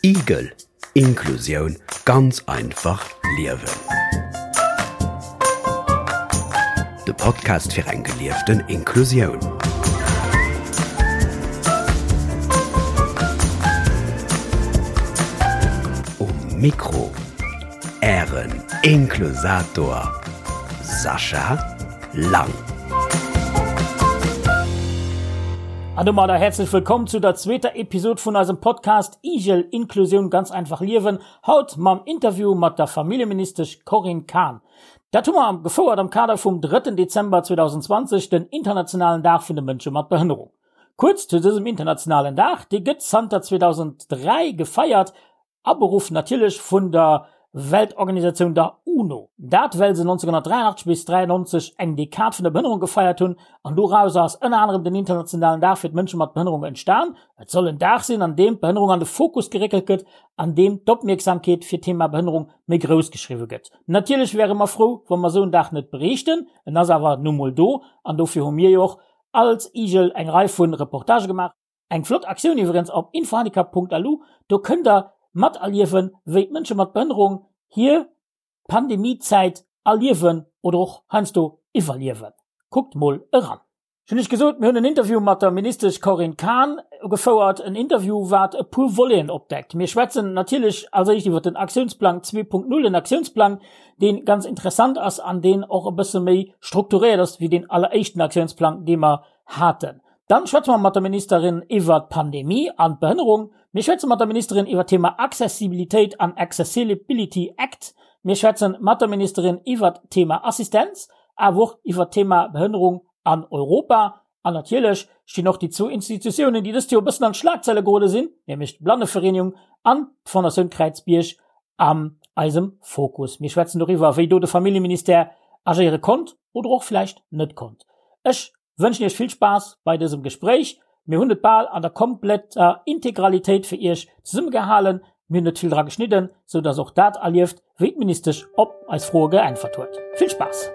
Igel, Inklusioun ganz einfach liewen. De Podcast fir eng gelieften Inklusioun. Um Mikro Ären Inklusator Sascha Lang. An domadder häerzlech wëllkomm zu der zweeter Episod vun eisem Podcast Igel, Inklusioun ganz einfach liewen, haut mam Interview mat der Familljeministesch Corinne Cahen. Dat hu mer gefouert am Kader vum drëtten Dezember 2020, den internationalen Dag vun de Mënsche mat Behënnerung. Kuerz zu dësem internationalen Dag, dee gëtt zanter 2003 gefeiert Aberuff natierlech vun der Weltorganisatioun der UNO. Dat well se 1983 bis 93 eng Dekad vun der Behënnerung gefeiert hunn an dorauser ass ënner anerem den internationalen Dag fir d'Mënsche mat Behënnerung entstan. Et soll en Dag sinn an deem d'Behënnerung an de Fokus geréckelt gëtt, an deem d'Opmierksamkeet fir d'Thema Behënnerung méi grouss geschriwwe gëtt. Natierlech wäre mer frou, wa mer esou en Dag net bréichten, en ass awer nu mol do an dofir hu mir jo och als IGEL eng Rei vu Reportagë gemaach. Eng flott Aktioun iwwerens op infohandicap.lu, do kënnt der materliewen, wéi d'Mënsche mat Behënnerung hir Pandemiezäit erliewen oder och heiansdo iwwerliewen. Kuckt mol eran. Ech hunn iech gesot, mir hunn en Interview mat der Ministesch Corinne Cahen gefouert, en Interview wat e puer Voleten opdeckt. Mir schwätzen natierlech als éischt iwwer den Aktiounsplang 2.0, en Aktiounsplang, dee ganz interessant ass an deen och e bësse méi strukturéiert ass wéi deen alleréischten Aktiounsplang, dee mer haten. Dann schwätze mer mat der Ministerin iwwert d'Pandemie an d'Behënnerung. Mir schwätze mat der Ministerin iwwert d'Thema Accessibilitéit an Accessilibility Act. Mir schwätzen mat der Ministerin iwwert d'Thema Assistenz, awer och iwwert d'Thema Behënnerung an Europa. An natierlech stinn och déi zwou Institutiounen, déi dëst Joer e bëssen an d'Schlagzeile gerode sinn, nämlech d'Blannevereenigung an d'Fondatioun Kräizbierg an eisem Fokus. Mir schwätzen doriwwer, wéi do de Familljeministère agéiere konnt oder och vläicht net konnt. Ech Wënschen iech vill Spaass bei dësem Gespréich. Mir hunn et bal an der kompletter Integralitéit fir iech zesummegehalen. Mir hunn net vill dra geschnidden, sou dass och dat erlieft, wéi d'Ministesch op eis Froe geäntwert huet. Vill Spaass!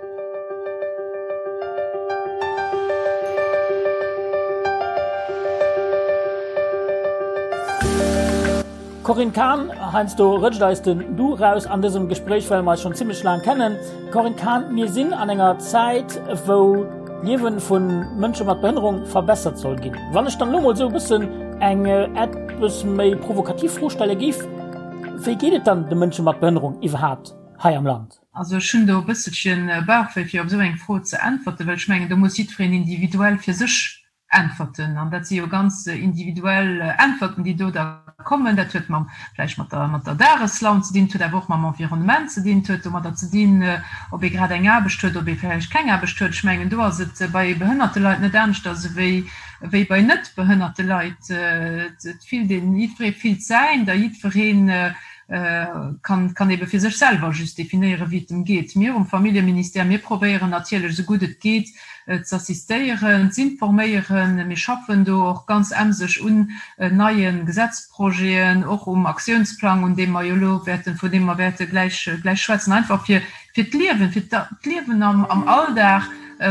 Corinne Cahen, Heiansdo rëtscht eis den Du raus an dësem Gespréich, well mer eis schonn zimmlech laang kennen. Corinne Cahen, mir sinn an enger Zäit, wou d'Liewe vu Mënsche mat Behënnerung verbessert soll ginn. Wann ech dann elo mol esou e bëssen eng eppes méi provokativ Fro stelle géif, Wéi geet et dann de Mënsche mat Behënnerung iwwerhaapt hei am Land? Also ech hunn do e bësselche Bauchwéi fir op esou eng Fro ze äntwerten, well ech mengen, do muss jiddwereen individuell fir sech Äntwerten, an dat si jo ganz individuell Äntwerten, déi do da kommen, dat huet mam, vläicht mat der, mat der Dageslaun ze dinn, et huet awer och mam Environnement ze dinn, et huet domadder ze dinn, ob ee grad eng Aarbecht huet, ob ee vläicht keng Aarbecht huet. Ech mengen, do ass et bei behënnerte Leit net aneschters ewéi, ewéi bei net behënnerte Leit. Et fillt een, jiddweree fillt säint a jiddweree kann, kann ebe fir sech selwer just definéieren, wéi et em geet. Mir um Familljeministère, mir probéieren natierlech, esou gutt et geet, z'assistéieren, z'informéieren. Mir schaffen do och ganz emseg un neie Gesetzprojeten, och um Aktiounsplang, un deem mer jo elo wäerten, vun deem mer wäerte gläich, gläich schwätzen, einfach fir, fir d'Liewen, fir d'Liewen am, am Alldag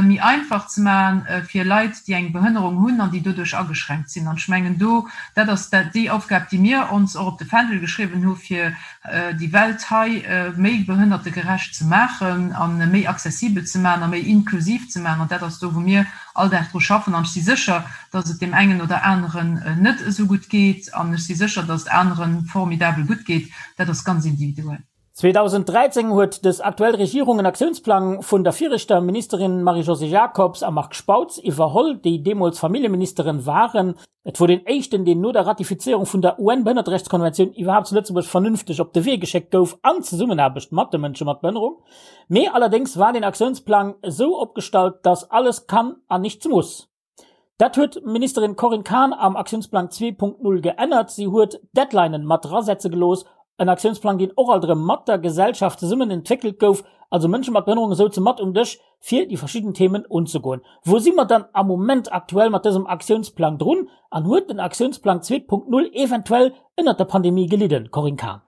méi einfach ze maachen fir Leit, déi eng Behënnerung hunn an déi doduerch ageschränkt sinn. An ech mengen do, dat ass déi Aufgab, déi mir ons och op de Fändel geschriwwen hu fir déi Welt hei méi behënnertegerecht ze maachen a méi accessibel ze maachen a méi inklusiv ze maachen. An dat ass do, wou mir all Dag dru schaffen. An ech si sécher, dass et deem engen oder aneren net esou gutt geet. An ech si sécher, dass et anere formidabel gutt geet. Dat ass ganz individuell. 2013 huet dës aktuell Regierung en Aktiounsplang vun der viregter Ministerin Marie-Josée Jacobs a Marc Spautz iwwerholl, déi deemools Familljeministeren waren. Et wor deen éischten, deen no der Ratifizéierung vun der UN-Behënnerterechtskonventioun iwwerhaapt zu Lëtzebuerg vernünfteg op de Wee geschéckt gouf, an Zesummenaarbecht mat de Mënsche mat Behënnerung. Mee allerdéngs war deen Aktiounsplang esou opgestallt, dass alles kann an nichts muss. Dat huet d'Ministerin Corinne Cahen am Aktiounsplang 2.0 geännert. Si huet Deadlinen mat drasetze gelooss, en Aktiounsplang, deen och alt erëm mat der Gesellschaft zesummen entwéckelt gouf, also Mënsche mat Behënnerunge souze mat um Dësch, fir déi verschidden Themen unzegoen. Wou si mer dann am Moment aktuell mat dësem Aktiounsplang drun an huet den Aktiounsplang 2.0 eventuell ënnert der Pandemie gelidden, Corinne Cahen?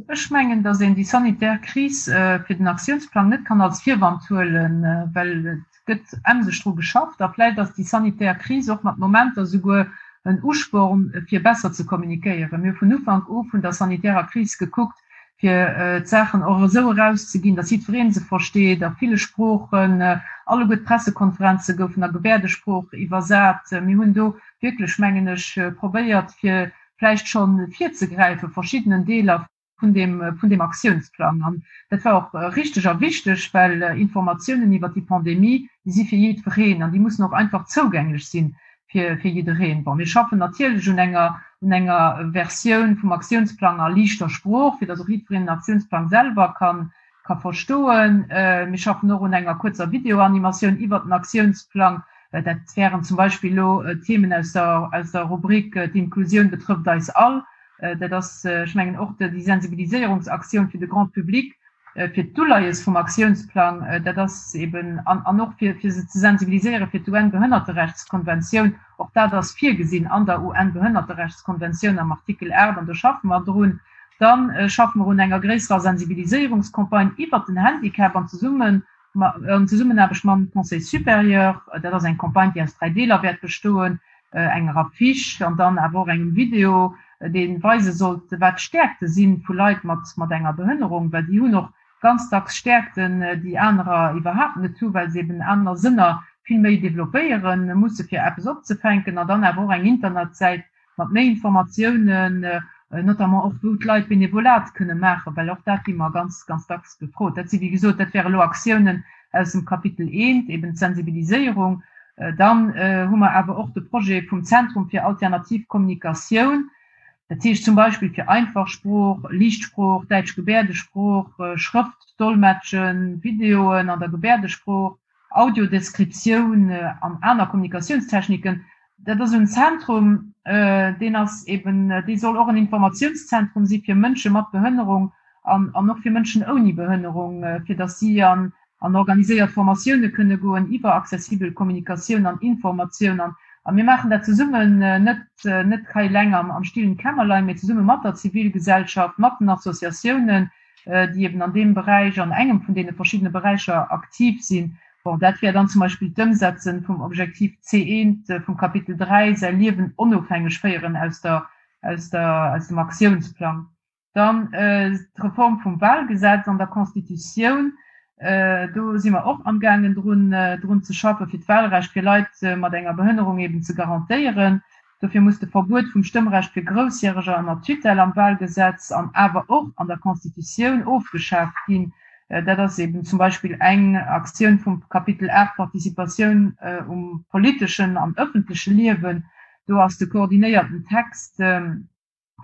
Ech mengen, datt een déi sanitär Kris fir den Aktiounsplang net kann als Virwand huelen, well et. gëtt emseg dru geschafft a vläicht ass déi sanitär Kris och mat Momenter souguer en Usporn, fir besser ze kommunikéieren. Mir hu vun Ufank u vun der sanitärer Kris gekuckt, fir d'Saachen och esou erauszeginn, datt jiddweree se versteet, a ville Sproochen. Alleguer d'Pressekonferenze goufen a Gebäerdesprooch iwwersat. Mir hunn do wierklech, mengen ech, probéiert, fir vläicht scho virzegräife verschiddenen Deeler vun deem, vun deem Aktiounsplang. An dat war och richteg a wichteg, well Informatiounen iwwert déi Pandemie, déi si fir jiddwereen an déi mussen och einfach zougänglech si fir, fir jiddereen. Bon, mir schaffen natierlech un enger, un enger Versioun vum Aktiounsplang a liichter Sprooch, fir datt och jiddwereen den Aktiounsplang selwer kann, ka verstoen. Mir schaffen och un enger kuerzer Videoanimatioun iwwert den Aktiounsplang. Dat wären zum Beispill elo Themen aus der, aus der Rubrik D'Inklusioun betrëfft eis all. Dat ass, ech mengen, och déi Sensibiliséierungsaktioun fir de Grand public, fir d'Uleies vum Aktiounsplang, dat ass eben, an och fir se ze sensibiliséiere fir d'UN-Behënnerterechtskonventioun, och dat ass virgesinn an der UN-Behënnerterechtskonventioun am Artikel 8, an do schaffe mer drun. Da schaffe mer un enger gréisserer Sensibiliséierungscampagne iwwert den Handicap an zesummen an Zesummenaarbecht mam Conseil supérieur. Dat ass eng Campagne, déi aus 3 Deeler wäert bestoen, enger Affiche an dann awer och engem Video, dee weise sollt, wat d'Stäerkte si vu Leit mat enger Behënnerung, well déi hunn och ganz dacks Stäerkten, déi anerer iwwerhaapt net hu, well se eben aner Sënner vill méi developpéiere musse fir eppes opzefänken, an dann awer och eng Internetsäit, mat méi Informatiounen, notamment och wou d'Leit Benevolat kënne maachen, well och dat gi mer ganz, ganz dacks gefrot. Dat si wéi gesot, dat wäre elo Aktiounen aus dem Kapitel I, eben d'Sensibiliséierung. Dann hu mer awer och de Projet vum Zentrum fir alternativ Kommunikatioun, dat heescht zum Beispill fir einfach Sprooch, Liicht Sprooch, däitsch Gebäerdesprooch, Schrëftdolmetschen, Videoen an der Gebäerdesprooch, Audiodeskriptioun an aner Kommunikatiounstechniken. Dat ass en Zentrum, deen ass eben, dee soll och en Informatiounszentrum si fir Mënsche mat Behënnerung an an och fir Mënschen ouni Behënnerung, fir datt si an an organiséiert Formatioune kënne goen iwwer accessibel Kommunikatioun an Informatioun. An a mir maachen dat zesummen, net net hei eleng am am stillen Kämmerlein, mee zesumme mat der Zivilgesellschaft, mat den Associatiounen, déi eben an deem Beräich, an engem vun deene verschiddene Beräicher aktiv sinn. Bon, dat wär dann zum Beispill d'Ëmsetze vum Objektiv C1 vum Kapitel 3, säi Liewen onofhängeg féieren, aus der, aus der, aus dem Aktiounsplang. Dann d'Reform vum Wahlgesetz an der Constitutioun, do si mer och amgaangen drun, drun ze schaffen, fir d'Wahlrecht fir Leit mat enger Behënnerung eben ze garantéieren. Dofir muss de Verbuet vum Stëmmrecht fir Groussjäreger ënner Tutelle am Wahlgesetz an awer och an der Constitutioun ofgeschaaft ginn. Dat ass eben zum Beispill eng Aktioun vum Kapitel 8, Participatioun um politeschen an ëffentleche Liewen. Do ass de koordinéierten Text vun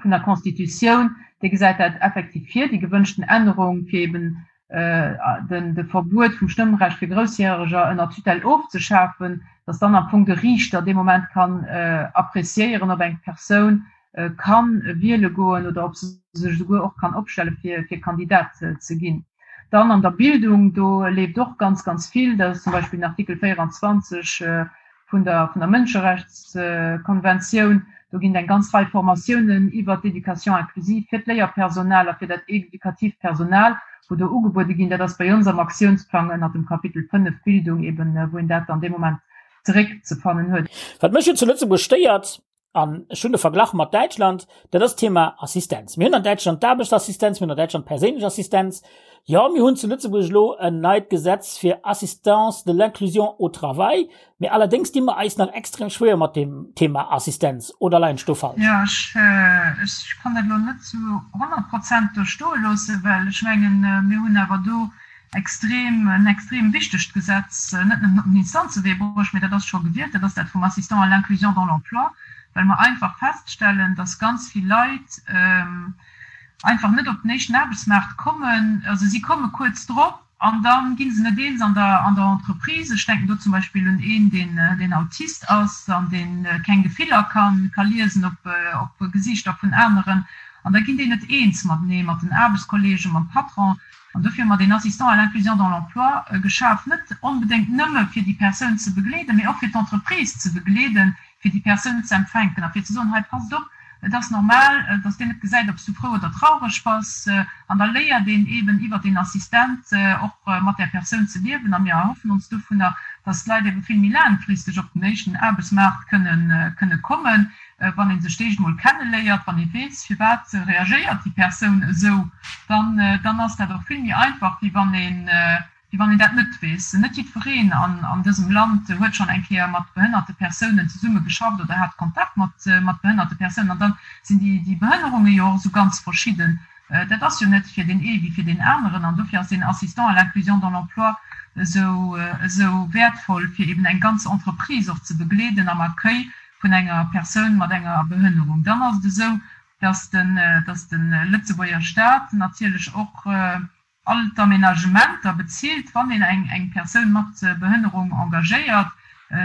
der Constitutioun, dee gesäit dat effektiv vir, déi gewënschten Ännerung, fir eben den de Verbuet vum Stëmmrecht fir Groussjäreger ënner Tutelle ofzeschafen, dass dann am Fong de Riichter dee Moment kann appréciéieren, ob eng Persoun ka wiele goen oder ob se sech esouguer och kann opstelle fir fir Kandidat ze ginn. Dann an der Bildung, do leeft och ganz, ganz vill. Dat ass zum Beispill den Artikel 24 vun der vun der Mënscherechtskonventioun. Do ginn et eng ganz Rei Formatiounen iwwert d'Éducation inclusive fir d'Léierpersonal a fir dat éducatiivt Personal, wou do ugebuede ginn. Dat ass bei ons am Aktiounsplang ënnert dem Kapitel 5 Bildung eben, wou een dat dann dee Moment zeréckzefannen huet. Wat mech jo zu Lëtzebuerg stéiert, an ech hunn de Verglach mat Däitschland, dat ass d'Thema Assistenz. Mir hunn an Däitschland d'Aarbechtsassistenz, mir hunn an Däitschland d'perséinlech Assistenz. Jo, mir hunn zu Lëtzebuerg elo en neit Gesetz fir Assistance de l'inclusion au travail, mee allerdéngs di mer eis nach extrem schwéier mat deem Thema Assistenz. Oder leien ech do falsch? Jo, ech, ech kann dat elo net zu 100 Prozent do stoe loossen, well ech mengen, mir hunn awer do extrem, en extrem wichtegt Gesetz net nëmmen op den Instanzewee bruecht, mee dat ass scho gewielt, dat ass dat vum Assistant à l'inclusion dans l'emploi, well mer einfach feststellen, dass ganz vill Leit einfach net op den éischten Aarbechtsmaart kommen, also si komme kuerz drop an da gi se net eens an der, an der Entreprise. Ech denken do zum Beispill un een, deen, deen Autist ass an dee keng Gefiller ka, ka liesen op, op Gesiichter vun aneren an da ginn déi net eens matenee, mat den Aarbechtskolleegen, mam Patron. An dofir hu mer deen Assistant à l'inclusion dans l'emploi geschaf, net onbedéngt nëmme fir déi Persoun ze begleeden, mee och fir d'Entreprise ze begleeden, fir déi Persoun ze empfänken a fir ze soen, hei passt op, et ass normal, dass deen net gesäit, ob s du frou oder traureg bass. An da léiert een eeben iwwert deen Assistent och mat där Persoun ze liewen. A mir erhoffen ons dovunner, dass d'Leit ebe vill méi laangfristeg op den éischten Aarbechtsmaart kënnen, kënne kommen, wann ee sech d'éischt emol kenneléiert, wann ee weess, firwat reagéiert déi Persoun esou, dann, dann ass dat och vill méi einfach, wéi wann een, wéi wann een dat net weess. Net jiddwereen an dësem Land huet schonn eng Kéier mat behënnerte Persounen zesumme geschafft oder hat Kontakt mat mat behënnerte Persounen. An da sinn déi déi Behënnerunge jo och esou ganz verschidden. Dat ass jo net fir deen ee wéi fir deen aneren. An dofir ass deen Assistant à l'inclusion dans l'emploi esou esou wäertvoll, fir eben eng ganz Entreprise och ze begleeden am Accueil vun enger Persoun mat enger Behënnerung. Dann ass et esou, dass den dass de Lëtzebuerger Stat natierlech och all d'Aménagementer bezilt, wann een eng eng Persoun mat Behënnerung engagéiert,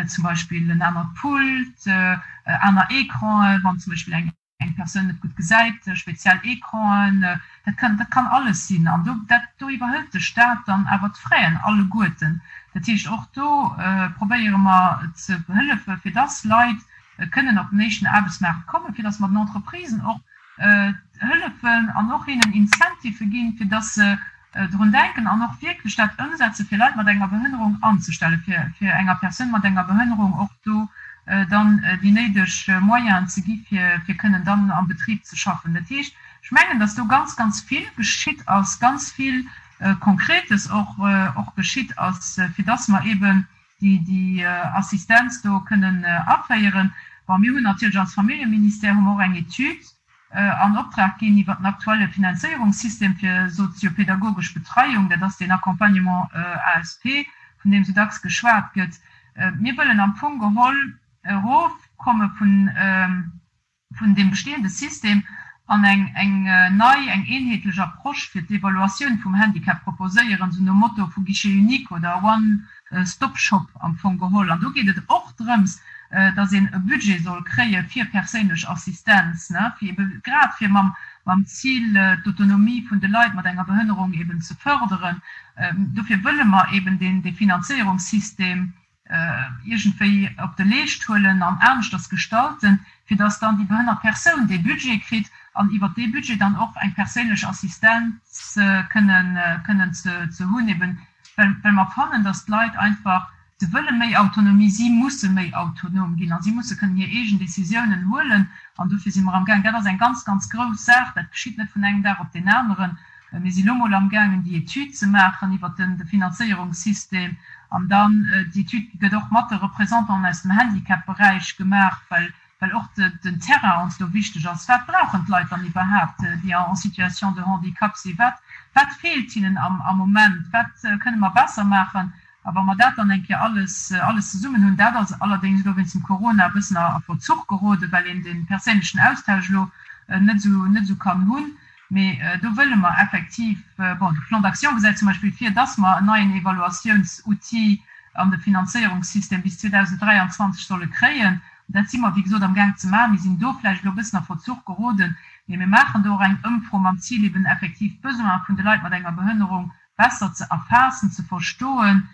zum Beispill en anert Pult, aner Ecranen, wann zum Beispill eng eng Persoun net gutt gesäit, speziell Ecranen, dat kann dat kann alles sinn. An do dat do iwwerhëlt de Stat dann awer d'Fraisen alleguerten. Dat heescht, och do probéiere mer ze hëllefe fir dass Leit kënnen op den éischten Aarbechtsmaart kommen, fir dass mer den Entreprisen och hëllefen an och hinnen Incentivë ginn, fir dass se drun denken an och wierklech dat ëmsetzen, fir Leit mat enger Behënnerung anzestellen, fir fir enger Persoun mat enger Behënnerung och do dann déi néideg Moyenen ze gi fir fir kënnen dann am Betrib ze schaffen. Dat heescht, ech mengen, dass do ganz, ganz vill geschitt ass, ganz vill Konkretes och och geschitt ass, fir dass mer eeben déi déi Assistenz do kënnen aféieren. Bon, mir hunn natierlech als Familljeministère hu mer och eng Etüd an Optrag ginn iwwert den aktuelle Finanzéierungssystem fir soziopedagogesch Betreiung, dat ass deen Accompagnement ASP, vun deem esou dacks geschwat gëtt. Mir wëllen am Fong geholl erofkomme vun vun deem bestehende System an eng eng nei, eng eenheetlech Approche fir d'Evaluatioun vum Handicap proposéieren, esou nom Motto vu Guichet unique oder One stop shop am Fong geholl. An do geet et och drëms, dass een e Budget soll kréie fir perséinlech Assistenz, ne, fir ebe grad fir mam mam Zil, d'Autonomie vun de Leit mat enger Behënnerung eben ze förderen. Dofir wëlle mer eben deen dee Finanzéierungssystem iergendwéi op de Leescht huelen an aneschters gestalten, fir dass dann déi behënnert Persoun dee Budget kritt an iwwert dee Budget dann och eng perséinlech Assistenz kënnen kënnen ze ze hunn, eben well well mer fannen, dass d'Leit einfach, se wëlle méi Autonomie, si musse méi autonom ginn a si musse kënnen hir eegen Décisiounen huelen an dofir si mer amgaang, dat ass eng ganz, ganz grouss Saach, dat geschitt net vun engem Dag op deen aneren, Mir si lo mol amgaangen, déi Etüd ze maachen iwwert de Finanzéierungssystem. An dann, déi Etüd gëtt och mat de Représentanten aus dem Handicap-Beräich gemaach, well well och den Terrain ons do wichteg ass. Wat brauchen d'Leit dann iwwerhaapt, déi en situation de handicap sinn? Wat wat feelt hinnen am am Moment? Wat kënne mer besser maachen? A wa mer dat dann eng Kéier alles alles zesummen hunn, dat ass allerdéngs elo wéinst dem Corona e bëssen a Verzuch geroden, well een de perséinlechen Austausch elo net esou net esou kann hunn, Mee do wëlle mer effektiv, bon, de Plan d'action gesäit zum Beispill vir, dass mer en neien Evaluatiounsoutil an de Finanzéierungssystem bis 2023 solle kréien. Dat si mer, wéi gesot, amgaang ze maachen. Mir sinn do vläicht elo e bëssen a Verzuch geroden, mee mir maachen do och eng Ëmfro mam Zil, eben effektiv d'Besoine vun de Leit mat enger Behënnerung besser ze erfaassen, ze verstoen,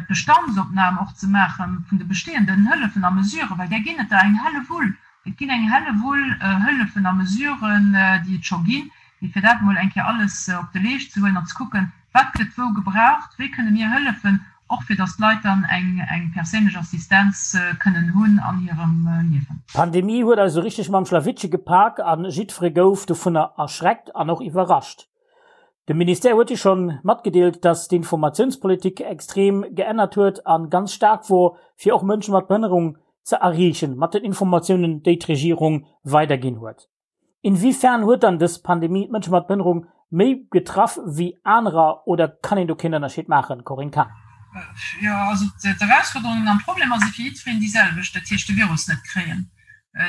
d'Bestandsopnam och ze maache vun de bestehenden Hëllefen a Mesuren, well där ginn et der eng Hellewull. Et ginn eng Hellewull Hëllefen a Mesuren, déi et scho ginn, mee fir dat emol eng Kéier alles op de Leescht ze huelen an ze kucken, wat gëtt wou gebraucht, wéi kënne mir hëllefen, och fir datt d'Leit dann eng eng perséinlech Assistenz kënnen hunn an hirem Liewen. D'Pandemie huet eis esou richteg mam Schlawittche gepak a jiddfere gouf dovunner erschreckt an och iwwerrascht. De Ministère huet jo schonn matgedeelt, dass d'Informatiounspolitik extrem geännert huet an ganz staark wor, fir och Mënsche mat Behënnerung ze erreechen mat den Informatiounen, déi d'Regierung weiderginn huet. Inwiefern huet dann dës Pandemie d'Mënsche mat Behënnerung méi getraff wéi anerer oder kann een do keen Ënnerscheed maachen? Corinne Cahen. Jo, also d'Erausforderungen an d'Problemer si fir jiddwereen déi selwecht, dat heescht de Virus net kréien.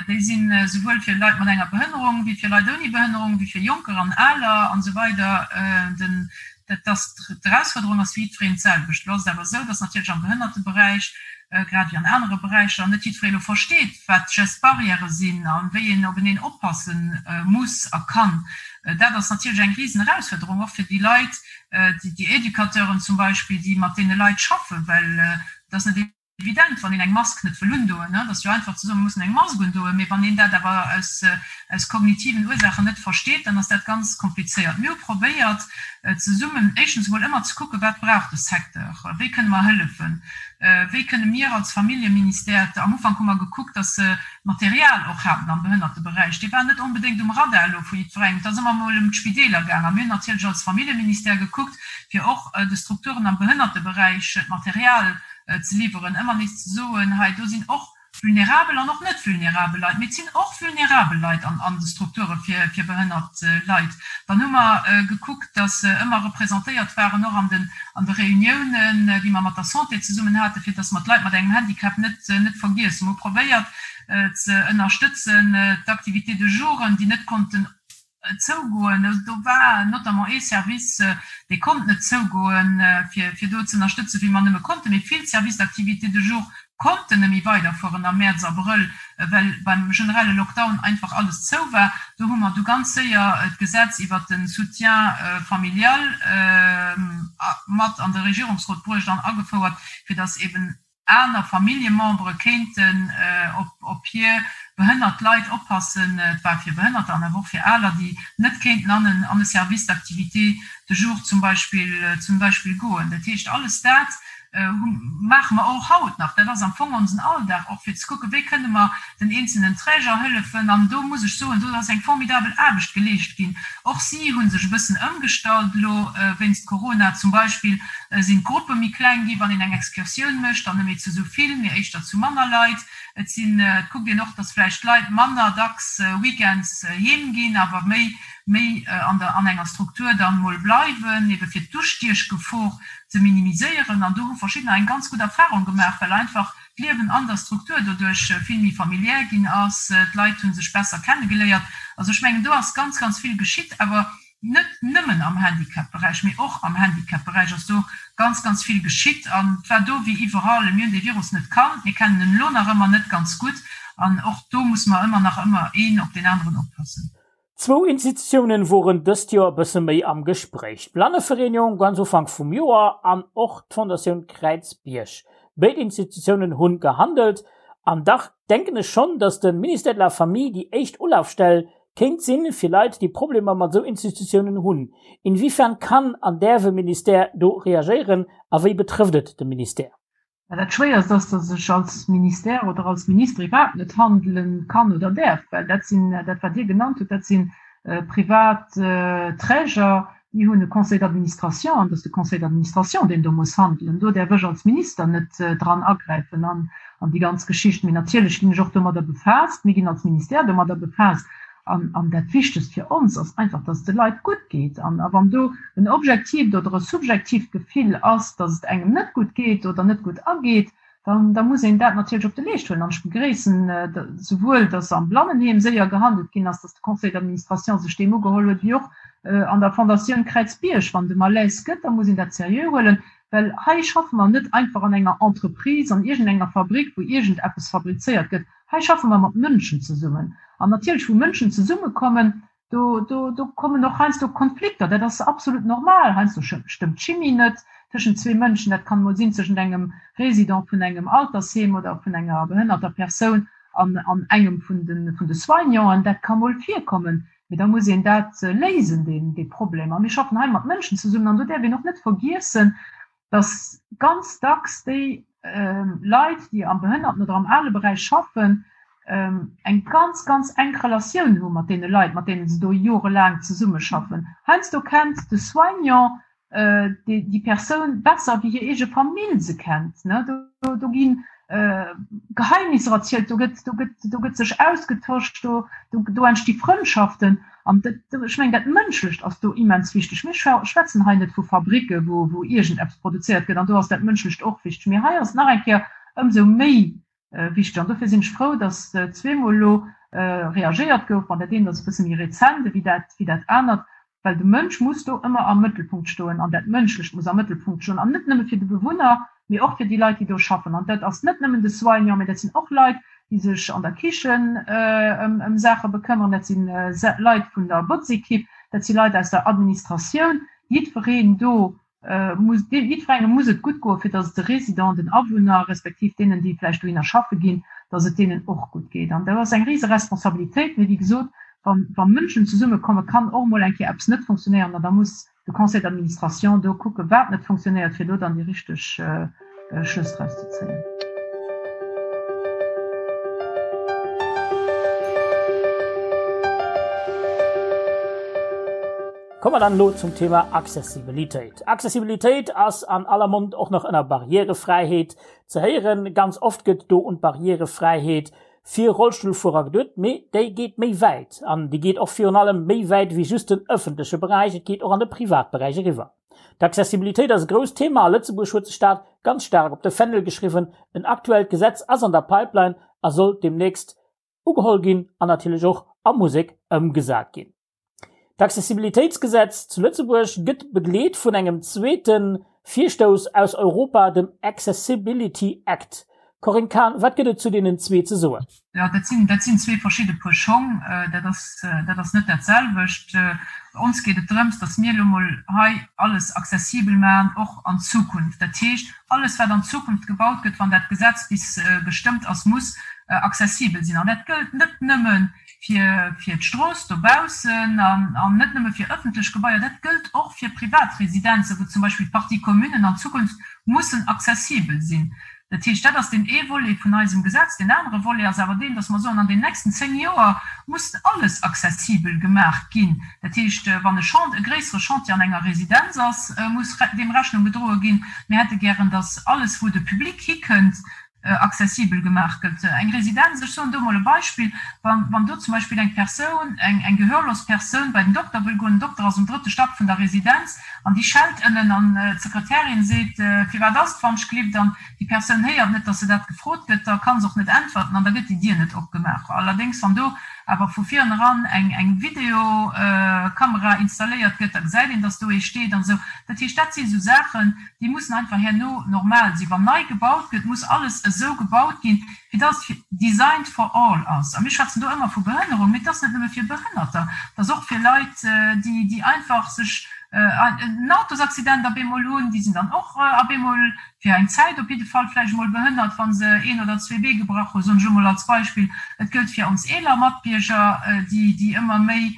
Déi sinn esouwuel fir Leit mat enger Behënnerung, wéi fir Leit ouni Behënnerung, wéi fir Jonker an Aler an esou weider. Dat ass, d'Erausfuerderung ass fir jiddwereen d'selwecht. Elo ass et awer esou, dass natierlech am Behënnerteberäich, grad ewéi an anere Beräicher, net jiddweree elo versteet, wat d'Gestes barrières sinn a wéi een openeen oppasse muss a kann. Dat ass natierlech eng Risenerausfuerderung, och fir déi Leit, déi Educateuren zum Beispill, déi mat deene Leit schaffen, well et ass net evident, wann een eng Mask net wëll undoen, et ass jo einfach ze soen, mir mussen eng Mask undoen, mee wann een dat awer aus, aus kognitiven Ursaachen net versteet, dann ass dat ganz komplizéiert. Mir hu probéiert, zesummen éischtens emol ëmmer ze kucken, wat brauch de Secteur, wéi kënne mer hëllefen. Wéi kënne mir als Familljeministère, am Ufank hu mer gekuckt, dass se Material och haten am Behënnerteberäich, dee war net onbedéngt um Radar elo vu jiddwerengem, et ass ëmmer emol ëm d'Spideeler gaang. A mir hunn natierlech als Familljeministère gekuckt, fir och de Strukturen am Behënnerteberäich d'Material ze liwweren, ëmmer nees ze soen, hei do sinn och vulnerabel an och net vulnerabel Leit, mee et sinn och vulnerabel Leit an de Strukture fir behënnert Leit. Dann hu mer gekuckt, dass se ëmmer representéiert waren, och an de Reuniounen, déi mer mat der Santé zesummen haten, fir dass mer d'Leit mat engem Handicap net net vergiessen. Mer hu probéiert ze ënnerstëtzen d'Activités de jouren, déi net konnten zougoen. Do war notamment ee Service, dee konnt net zougoen, fir do ze ënnerstëtzen, wéi mer nëmme konnten. Mee vill Services d'activités de jour konnten net méi weiderfueren am Mäerz, Abrëll, well beim generelle Lockdown einfach alles zou war. Do hu mer du ganz séier d'Gesetz iwwert de Soutien familial mat an de Regierungsrot bruecht an agefouert, fir datt eben aner Familljemembere kéinten op hir behënnert Leit oppassen. Et war fir Behënnerter an awer och fir Aler, déi net kéinten an e Service d'activités de jour zum Beispill zum Beispill goen. Dat heescht, alles dat maache mer och haut nach. Dat ass am Fong onsen Alldag och, fir ze kucken, wéi kënne mer den eenzelnen Träger hëllefen. An do muss ech soen, do ass eng formidabel Aarbecht geleescht ginn. Och si hu sech e bëssen ëmgestallt elo wéinst Corona. Zum Beispill sinn d'Gruppe méi kleng gi wann een eng Excursioun mécht, dann net méi zu esou vill, mee éischter zu manner Leit. Et sinn, et kuckt een och, datt vläicht d'Leit manner dacks weekends heem ginn, awer méi méi an der an enger Struktur dann mol bleiwen, ebe fir d'Ustiechgefor ze minimiséieren. An do hu verschiddener eng ganz gutt Erfahrung gemaach, well einfach d'Liewen an der Struktur doduerch vill méi familiär ginn ass, d'Leit hu sech besser kennegeléiert. Also ech mengen, do ass ganz, ganz vill geschitt, awer net nëmmen am Handicap-Beräich, mee och am Handicap-Beräich ass do ganz, ganz vill geschitt. An et war do wéi iwwerall, mir hunn dee Virus net kannt, mir kennen en elo nach ëmmer net ganz gutt an och do muss mer ëmmer nach ëmmer een op deen aneren oppassen. Zwou Institutiounen woren dëst Joer e bësse méi am Gespréich, d'Blannevereenigung ganz Ufank vum Joer an och d'Fondatioun Kräizbierg. Béid Institutiounen hunn gehandelt an dach denken ech schonn, dass de Ministère de la Famille déi éischt Ulafstell kéint sinn fir Leit déi Problemer mat esou Institutiounen hunn. Inwiefern kann an däerf e Ministère do reagéieren a wéi betrëfft et de Ministère? Mä dat Schwéierst ass, datt ech als Ministère oder als Minister iwwerhaapt net handele kann oder däerf, well dat sinn, dat wat Dir genannt hutt, dat si privat Träger, déi hunn e Conseil d'administration an et ass de Conseil d'administration, deen do muss handelen. Do däerf ech als Minister net dran agräifen an déi ganz Geschicht. Mee natierlech ginn ech och domadder befaasst, mir ginn als Ministère domadder befaasst. An dat Wichtegst fir ons ass einfach, dass et de Leit gutt geet. An wann do en objektiivt oder e subjektiivt Gefill ass, dass et engem net gutt geet oder net gutt ageet, dann da muss een dat natierlech op de Leescht huelen. An ech begréissen souwuel, dass am Blannenheem séier gehandelt ginn ass, dass de Conseil d'administration sech deem ugeholl huet, wéi och an der Fondatioun Kräizbierg. Wann et e Malaise gëtt, da muss een dat seriö huelen, well hei schaffe mer net einfach an enger Entreprise, an iergendenger Fabrik, wou iergendeppes fabrizéiert gëtt. Hei schaffe mer mat Mënschen zesummen. An natierlech, wou Mënschen zesummekommen, do, do, do kommen och heiansdo Konflikter. Dat ass absolut normal. Heiansdo stëmmt d'Chimie net tëschent zwee Mënschen. Dat kann emol sinn tëschent engem Résident vun engem Altersheem oder vun enger behënnerter Persoun an, an engem vun de, vun de Soignanten. Dat ka mol virkommen. Mee da muss een dat léisen, deen, dee Problem. A mir schaffen hei mat Mënschen zesummen. An do däerf een och net vergiessen, dass ganz dacks déi Leit, déi am Behënnerten oder am Aleberäich schaffen, eng ganz, ganz enk Relatioun hu mat deene Leit, mat deene se do jorelaang zesummeschaffen. Heiansdo kennt de Soignant déi Persoun besser, wéi hir eege Famill se kennt. Do gi Geheimnisser erzielt, do gëtt, do gëtt, do gëtt sech ausgetosch, do, do entsti Frëndschaften. An dat, ech mengen, dat Mënschlecht ass do immens wichteg. Mir schwätzen hei net vu Fabricke wou, wou iergendeppes produzéiert gëtt, an do ass dat Mënschlecht och wichteg, mee hei ass et nach eng Kéier ëmsou méi wichteg. An dofir sinn ech frou, datt zweemol elo reagéiert gouf. Bon, dat eent ass e bësse méi rezent ewéi dat, wéi dat anert, well de Mënsch muss do ëmmer am Mëttelpunkt stoen an dat Mënschlecht muss am Mëttelpunkt stoen, an net nëmme fir de Bewunner, mee och fir déi Leit, déi do schaffen. An dat ass net nëmmen de Soignant, mee dat sinn och Leit, déi sech an der Kichen ëm Saache bekëmmeren, dat si Leit vun der Botzekipp, dat si Leit aus der Administratioun. Jiddwereen do muss, jiddwerengem muss et gutt goen, fir datt et de Résidenten, den Awunner, respektiv deenen, déi vläicht dohinner schaffe ginn, datt et deenen och gutt geet. An dat ass eng rise Responsabilitéit. Mee wéi gesot, wa Mënschen zesummekommen, kann och emol eng Kéier eppes net funktionéieren an da muss de Conseil d'administration do kucken, wat net funktionéiert, fir do dann déi richteg. Schlëss draus ze zéien. Komme mer dann elo zum Thema Accessibilitéit. Accessibilitéit ass an aller Mond och nach ënner Barrièrefräiheet ze héieren. Ganz oft gëtt do un d'Barrièrefräiheet fir Rollstullfuerer geduet, mee déi geet méi wäit an déi geet och virun allem méi wäit wéi just den ëffentleche Beräich, et geet och an de Privatberäich eriwwer. D'Accessibilitéit ass e grousst Thema a Lëtzebuerg huet sech dat ganz staark op de Fändel geschriwwen. En aktuellt Gesetz ass an der Pipeline a soll deemnächst ugeholl ginn an natierlech och a Musek ëmgesat ginn. D'Accessibilitéitsgesetz zu Lëtzebuerg gëtt begleet vun engem zweete Virstouss aus Europa, dem Accessibility Act. Corinne Cahen, wat gëtt et zu deenen zwee ze soen? Jo, dat sinn, dat sinn zwee verschidde Puer Schong. Dat ass, dat ass net dat selwecht. Ons geet et drëms, datt mir elo mol hei alles accessibel maachen, och an Zukunft. Dat heescht, alles wat an Zukunft gebaut gëtt, wann dat Gesetz bis gestëmmt ass, muss accessibel sinn. An dat gëllt net nëmme fir, fir d'Strooss dobaussen an, an net nëmme fir ëffentlech Gebaier, dat gëllt och fir Privatresidenzen, wou zum Beispill d'Parties communes an Zukunft mussen accessibel sinn. Dat heescht, dat ass deen ee Volet vun eisem Gesetz. Deen anere Volet ass awer deen, dass mer soen, an den nächsten zéng Joer muss alles accessibel gemaach ginn. Dat heescht, wann e Chant, e gréissere Chantier an enger Residenz ass, muss deem Rechnung gedroe ginn. Mir hätte gären, dass alles, wou de Public hikënnt, accessibel gemaach gëtt. Eng Residenz, ech soen do emol e Beispill, wann do zum Beispill eng Persoun, eng gehörlos Persoun bei den Dokter wëll goen, den Dokter ass um drëtte Stack vun der Residenz, An déi schellt ënnen an d'Sekretärin seet, Firwat ass et wann-ch-glift? An déi Persoun héiert net, datt se dat gefrot gëtt, da ka se och net äntwerten an da gëtt déi Dier net opgemaach. Allerdéngs, wann do awer vu vireneran eng Videokamera installéiert gëtt, da gesäit een, datt do ee steet an esou. Dat heescht, dat si esou Saachen, déi mussen einfach herno normal sinn. Wann nei gebaut gëtt, muss alles esou gebaut ginn, fir dass et designed for all ass. A mir schwätzen do ëmmer vu Behënnerung, mee et ass net nëmme fir Behënnerter, et ass och fir Leit, déi, déi einfach sech en Autosaccident op eemol hunn, déi sinn dann och op eemol fir eng Zäit op jidde Fall vläicht emol behënnert, wa se een oder zwee Bee gebrach hunn, soen ech emol als Beispill. Et gëllt fir ons eeler Matbierger, déi, déi ëmmer méi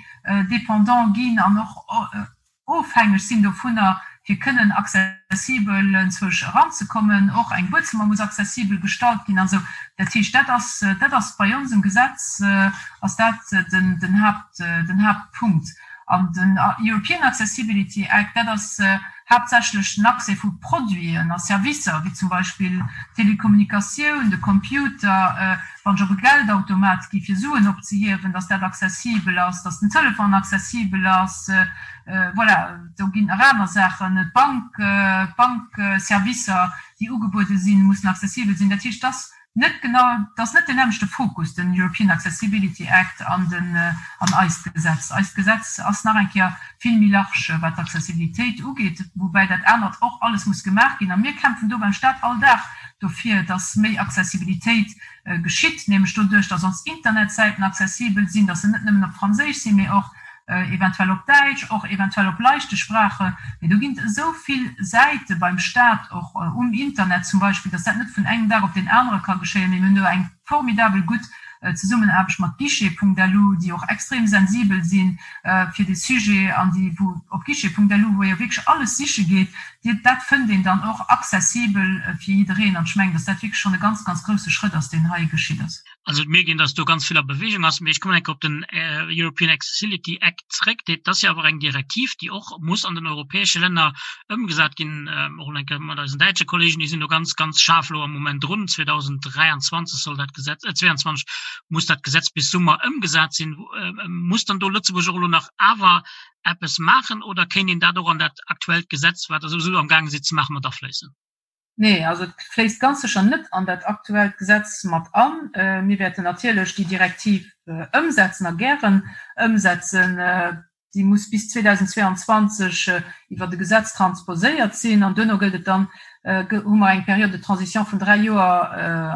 dépendant ginn an och, ofhängeg sinn dovunner, fir kënnen accessibel enzwousch eranzekommen. Och eng Buedzëmmer muss accessibel gestallt ginn an esou. Dat heescht, dat ass, dat ass bei onsem Gesetz ass dat den, den Haupt, den Hauptpunkt. An den European Accessibility Act, dat ass haaptsächlech den Accès vu Produiten a Servicer, wéi zum Beispill d'Telekommunikatioun, de Computer, wann ech op e Geldautomat gi fir Suen opzehiewen, dass dat accessibel ass, dass den Telefon accessibel ass, voilà, do ginn nach aner Saachen, d'Bank, d'Bankservicer, déi ugebuede sinn, mussen accessibel sinn. Dat heescht, dass net genau, dass net deen nämmlechte Fokus, den European Accessibility Act an den, an eist Gesetz. Eist Gesetz ass nach eng Kéier vill méi large, wat d'Accessibilitéit ugeet, woubäi dat anert och alles muss gemaach ginn. A mir kämpfen do beim Stat all Dag dofir, dass méi Accessibilitéit geschitt, nämlech doduerch, dass ons Internetsäiten accessibel sinn, dass se net nëmmen op Franséisch sinn, mee och eventuell op Däitsch, och eventuell op leichte Spraache. Mee do ginn et esou vill Säite beim Stat, och um Internet zum Beispill, dass dat net vun engem Dag op deen anere ka geschéien. Mee mir hunn do eng formidabel gutt Zesummenaarbecht mat Guichet.lu, déi och extrem sensibel si fir dee Sujet an déi, wou op Guichet.lu, wou ee jo wierklech alles siche geet, déi, dat fënnt een dann och accessibel fir jiddereen. An ech mengen, dass dat wierklech schonn e ganz, ganz grousse Schrëtt ass, deen hei geschitt ass. Also et mierkt een, dass do ganz vill a Bewegung ass. Mee ech kommen eng Kéier op den European Accessibility Act zréck. Dat ass jo awer eng Direktiv, déi och muss an den europäesche Länner ëmgesat ginn. Och eng Kéier mat eisen däitsche Kollegen, déi sinn do ganz, ganz schaarf elo am Moment drun. 2023 soll dat Gesetz, äh 22 muss dat Gesetz bis Summer ëmgesat sinn. Muss dann do Lëtzebuerg och elo nach awer eppes maachen oder kéint een dat och an dat aktuellt Gesetz, wat Der souwisou amgaange sidd ze maachen, mat afléissen? Nee, also et fléisst ganz sécher net an dat aktuellt Gesetz mat an. Mir wäerten natierlech déi Direktiv ëmsetzen a gären ëmsetzen. Déi muss bis 2022 iwwert e Gesetz transposéiert sinn an duerno gëllt et dann, hu mer eng Période de transition vun dräi Joer,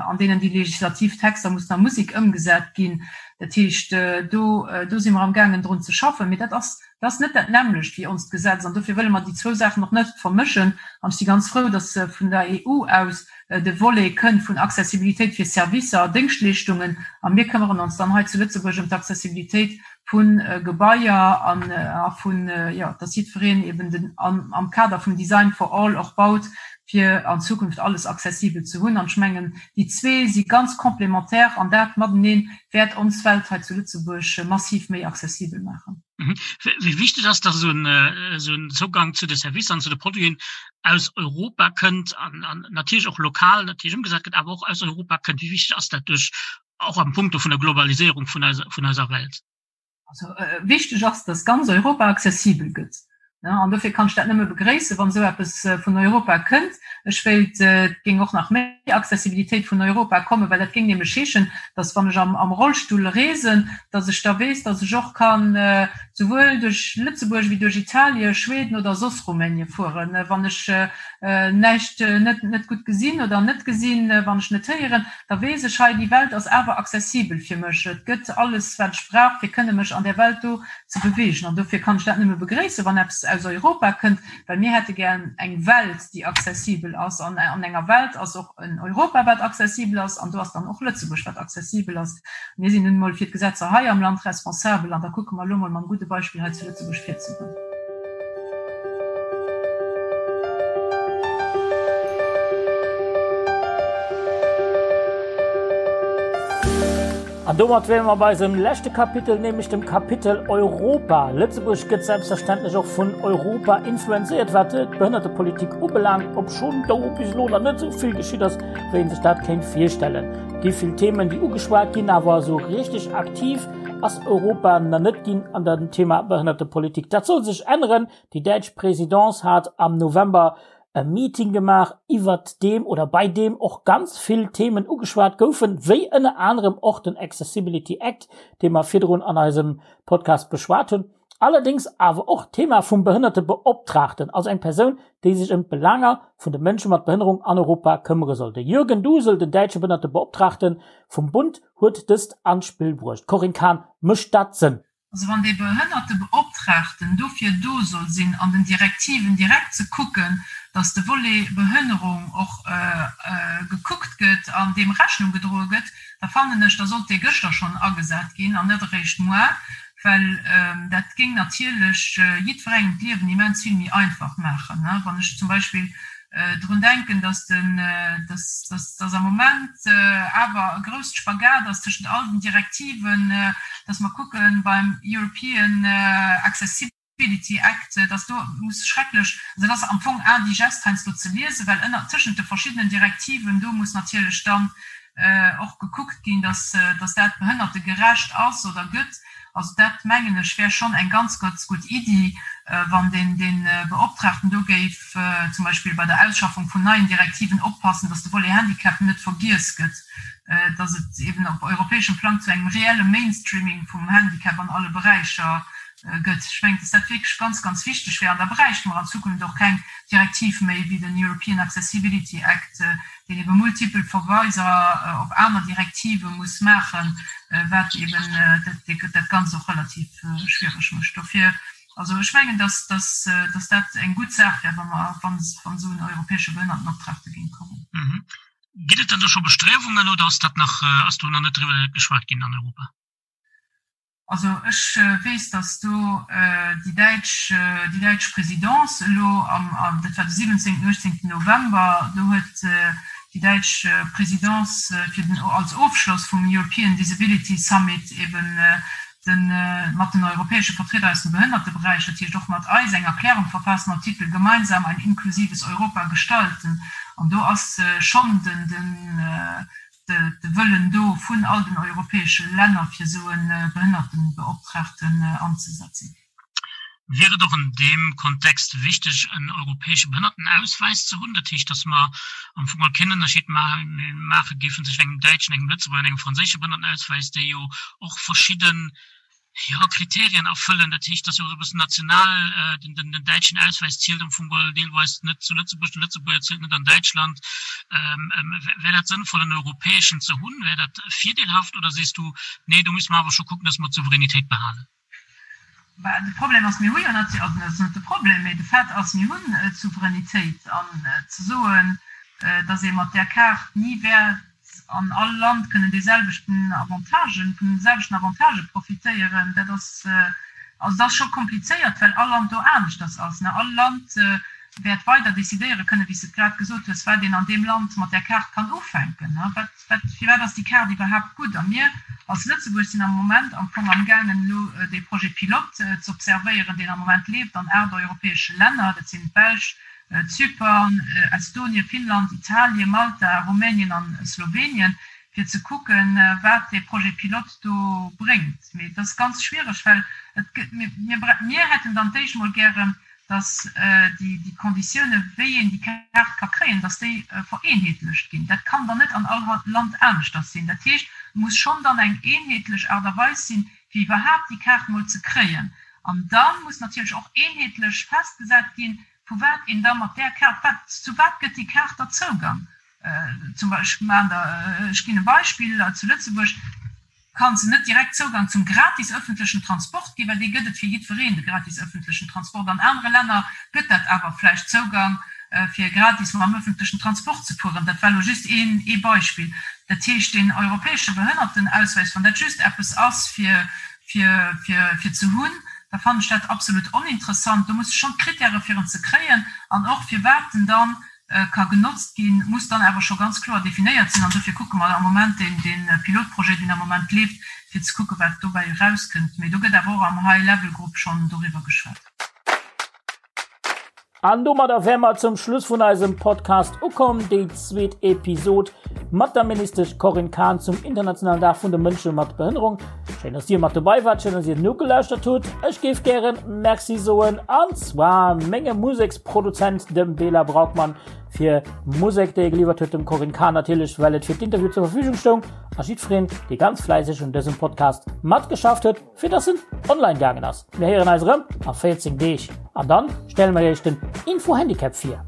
an deenen déi legislativ Texter mussen a Musek ëmgesat ginn. Dat heescht, do, do si mer amgaangen drun ze schaffen. Mee dat ass. Dat ass net dat nämmlecht wéi onst Gesetz an dofir wëlle mer déi zwou Saachen och net vermëschen. An ech si ganz frou, dass vun der EU aus de Volet kënnt vun Accessibilitéit fir Servicer a Déngschtleeschtungen a mir këmmeren ons dann hei zu Lëtzebuerg ëm d'Accessibilitéit vu Gebaier an a vun, jo, dass jiddwereen eben den am Kader vum Design for all och baut, fir an Zukunft alles accessibel ze hunn. An ech mengen, déi zwee si ganz complémentaire an dat matenee wäert ons Welt hei zu Lëtzebuerg massiv méi accessibel maachen. Wéi wichteg ass, dass esou en Zougang zu de Servicer an zu de Produiten aus Europa kënnt an natierlech och lokal natierlech ëmgesat gëtt, awer och aus Europa kënnt? Wéi wichteg ass dat duerch och am Punkto vun der Globaliséierung vun eiser Welt? Also wichteg ass, dass ganz Europa accessibel gëtt. An dofir kann ech dat nëmme begréissen, wann esou eppes vun Europa kënnt. Ech wéilt, et géing och nach méi Accessibilitéit vun Europa kommen, well dat géing nämlech heeschen, dass, wann ech am Rollstull reesen, dass ech da weess, dass ech och kann souwuel duerch Lëtzebuerg wéi duerch Italien, Schweden oder soss Rumänie fueren. Wann ech näischt net gutt gesinn oder net gesinn, wann ech net héieren, da weess ech, hei, déi Welt ass awer accessibel fir mech. Et gëtt alles, wat ech brauch, fir kënne mech an där Welt do ze beweegen. An dofir kann ech dat nëmme begréissen, wann eppes aus Europa kënnt, well mir hätte gär eng Welt, déi accessibel ass. An an enger Welt ass och en Europa, wat accessibel ass, an do ass dann och Lëtzebuerg, wat accessibel ass. Mir sinn nun emol fir d'Gesetzer hei am Land responsabel, an da kucke mer elo emol mam gudde Beispill hei zu Lëtzebuerg virzegoen. An domat wäre mer bei eisem leschte Kapitel, nämlech dem Kapitel Europa. Lëtzebuerg gëtt selbstverständlech och vun Europa influenzéiert, wat d'Behënnertepolitik ubelaangt, obschonn do bis elo nach net esou vill geschitt ass, wéi een sech dat kéint virstellen. Et gi vill Themen, déi ugeschwat ginn, awer esou richteg aktiv ass Europa nach net ginn an dem Thema Behënnertepolitik. Dat soll sech änneren. Déi däitsch Présidence hat am November e Meeting gemaach, iwwert deem oder bei deem och ganz vill Themen ugeschwat goufen, wéi ënner anerem och den Accessibility Act, dee mer virdrun an eisem Podcast beschwat hunn, allerdéngs awer och d'Thema vum Behënnertebeoptraagten, also eng Persoun, déi sech ëm d'Belaanger vun de Mënsche mat Behënnerung an Europa këmmere soll. De Jürgen Dusel, den däitsche Behënnertebeoptraagte vum Bund, huet dëst an d'Spill bruecht. Corinne Cahen, Mécht dat Sënn? Also wann dee Behënnertebeoptraagten dofir do soll sinn, an den Direktiven direkt ze kucken, datt de Volet Behënnerung och gekuckt gëtt an deem Rechnung gedroe gëtt, da fannen ech, da sollt dee gëschter schonn agesat ginn an net eréischt muar, well dat géing natierlech jiddwerengem d'Liewen immens vill méi einfach maachen. Wann ech zum Beispill drun denken, dass den, dass, dass, dass am Moment awer e grousst Spagat ass tëschent all den Direktiven, dass mer kucken beim European Accessibility Act, dass do muss schrecklech, also dat ass am Fong indigeste heiansdo ze liesen, well ënner, tëschent de verschiddenen Direktiven do muss natierlech dann och gekuckt ginn, dass, dass dat behënnertegerecht ass oder gëtt. Also dat, mengen ech, wär schonn eng ganz, ganz gutt Iddi, wann deen, dee Beoptraagten do géif zum Beispill bei der Ausschaffung vun neien Direktiven oppassen, dass de Volet Handicap net vergiess gëtt, dass et eben op europäeschem Plang zu engem reelle Mainstreaming vum Handicap an alle Beräicher gëtt. Ech mengen, dass dat wierklech ganz, ganz wichteg wär. An da bräichte mer an Zukunft och keng Direktiv méi wéi den European Accessibility Act, deen ebe multipel Verweiser op aner Direktive muss maachen, wat eben dat Ganzt och relativ schwiereg mécht. Dofir, also ech mengen, dass dat eng gutt Saach wär, wa mer, wann esou en europäesche Behënnertenoptragte géing kommen. Ginn et dann do scho Bestriewungen oder ass dat nach, ass do nach net driwwer geschwat ginn an Europa? Also ech weess, datt do déi däitsch, déi däitsch Présidence elo am, dat war de 17., 18. November, do huet déi däitsch Présidence fir den, als Ofschloss vum European Disability Summit eben de mat den europäesche Vertrieder aus dem Behënnerteberäich, dat heescht och mat eis, eng Erklärung verfaasst mam Titel Gemeinsam ein inklusives Europa gestalten. An do ass schonn den, den, de Wëllen do vun all den europäesche Länner, fir esou e Behënnertenbeoptraagten anzesetzen. Wier et och an deem Kontext wichteg, en europäesche Behënnertenauswäis ze hunn? Dat heescht, datt mer am Fong all keen Ënnerscheed maache géifen tëschent engem däitschen, engem Lëtzebuerger an engem franséische Behënnertenauswäis, déi jo och verschidden jo, Kriterien erfëllen. Dat heescht, dass jo och e bëssen national, den, den, den däitschen Auswäis zielt am Fong geholl deelweis net zu Lëtzebuerg, de Lëtzebuerger zielt net an Däitschland. Wär dat sënnvoll, en europäeschen ze hunn? Wär dat virdeelhaft oder sees du, nee, do musse mer awer scho kucken, dass mer d'Souveränitéit behalen? Bah, de Problem ass, mir hu jo natierlech, also dat ass net de Problem, mee de Fait ass, mir hunn d'Souveränitéit. An ze soen, datt ee mat där Kaart ni wäert an all Land kënnen deeselwechten Avantagen, vun de selwechten Avantagë profitéieren, dat ass, also dat ass scho komplizéiert, well all Land do aneschters ass. All Land wäert weider decidéiere kënnen, wéi s de et grad gesot hues, wat een an deem Land mat där Kaart kann ufänken. Wat, wat, firwat ass déi Kaart iwwerhaapt gutt? A mir als Lëtzebuerg sinn am Moment am Fong amgaangen, elo dee Projet pilote z'observéieren, deen am Moment leeft an 8 europäesche Länner, dat sinn d'Belsch, Zypern, Estonien, Finnland, Italien, Malta, Rumänien an Slowenien, fir ze kucken, wat dee Projet pilote do bréngt. Mee et ass ganz schwiereg, well et gëtt, mir, mir hätten dann d'éischt emol gären, dass déi Konditiounen, wéi een déi Kaart ka kréien, dass déi vereenheetlecht ginn. Dat kann dann net an all Land aneschters sinn. Dat heescht, et muss schonn dann eng eenheetlech Aart a Weis sinn, fir iwwerhaapt déi Kaart mol ze kréien. An da muss natierlech och eenheetlech festgesat ginn, vu wat een da mat där Kaart, wat, zu wat gëtt déi Kaart da Zougang? Zum Beispill, ech maachen der, ech ginn e Beispill, zu Lëtzebuerg ka se net direkt Zougang zum gratis öffentlechen Transport ginn, well dee gëtt et fir jiddwereen, de gratis öffentlechen Transport. An anere Länner gëtt dat awer vläicht Zougang, fir gratis mam öffentlechen Transport ze fueren. Dat war elo just een, ee Beispill. Dat heescht, deen europäesche Behënnertenausweis, wann dat just eppes ass fir, fir, fir, fir ze hunn, da fannen ech dat absolut oninteressant. Do musse schonn d'Kritäre fir en ze kréien an och firwat en dann ka genotzt ginn, muss dann awer scho ganz kloer definéiert sinn. An dofir kucke mer am Moment deen, dee Pilotprojet, deen am Moment leeft, fir ze kucken, wat dobäi erauskënnt. Mee do gëtt awer och am High-Level-Grupp schonn doriwwer geschwat. An domadder wäre mer zum Schluss vun eisem Podcast ukomm, déi zweet Episod mat der Ministesch Corinne Cahen zum internationalen Dag vun de Mënsche mat Behënnerung. Schéin, dass Dir mat dobei wart, schéin, dass Dir nogelauschtert hutt. Ech géif gären Merci soen, an zwar mengem Museksproduzent, dem Bela Braukmann, fir Musek, déi e geliwwert huet, dem Corinne Cahen natierlech, well et fir d'Interview zur Verfügung stoung, a jiddwereen, dee ganz fläisseg un dësem Podcast matgeschafft huet. fir dass en online gaangen ass. Mir héieren eis erëm a 14 Deeg an dann stelle mer iech den Info Handicap vir.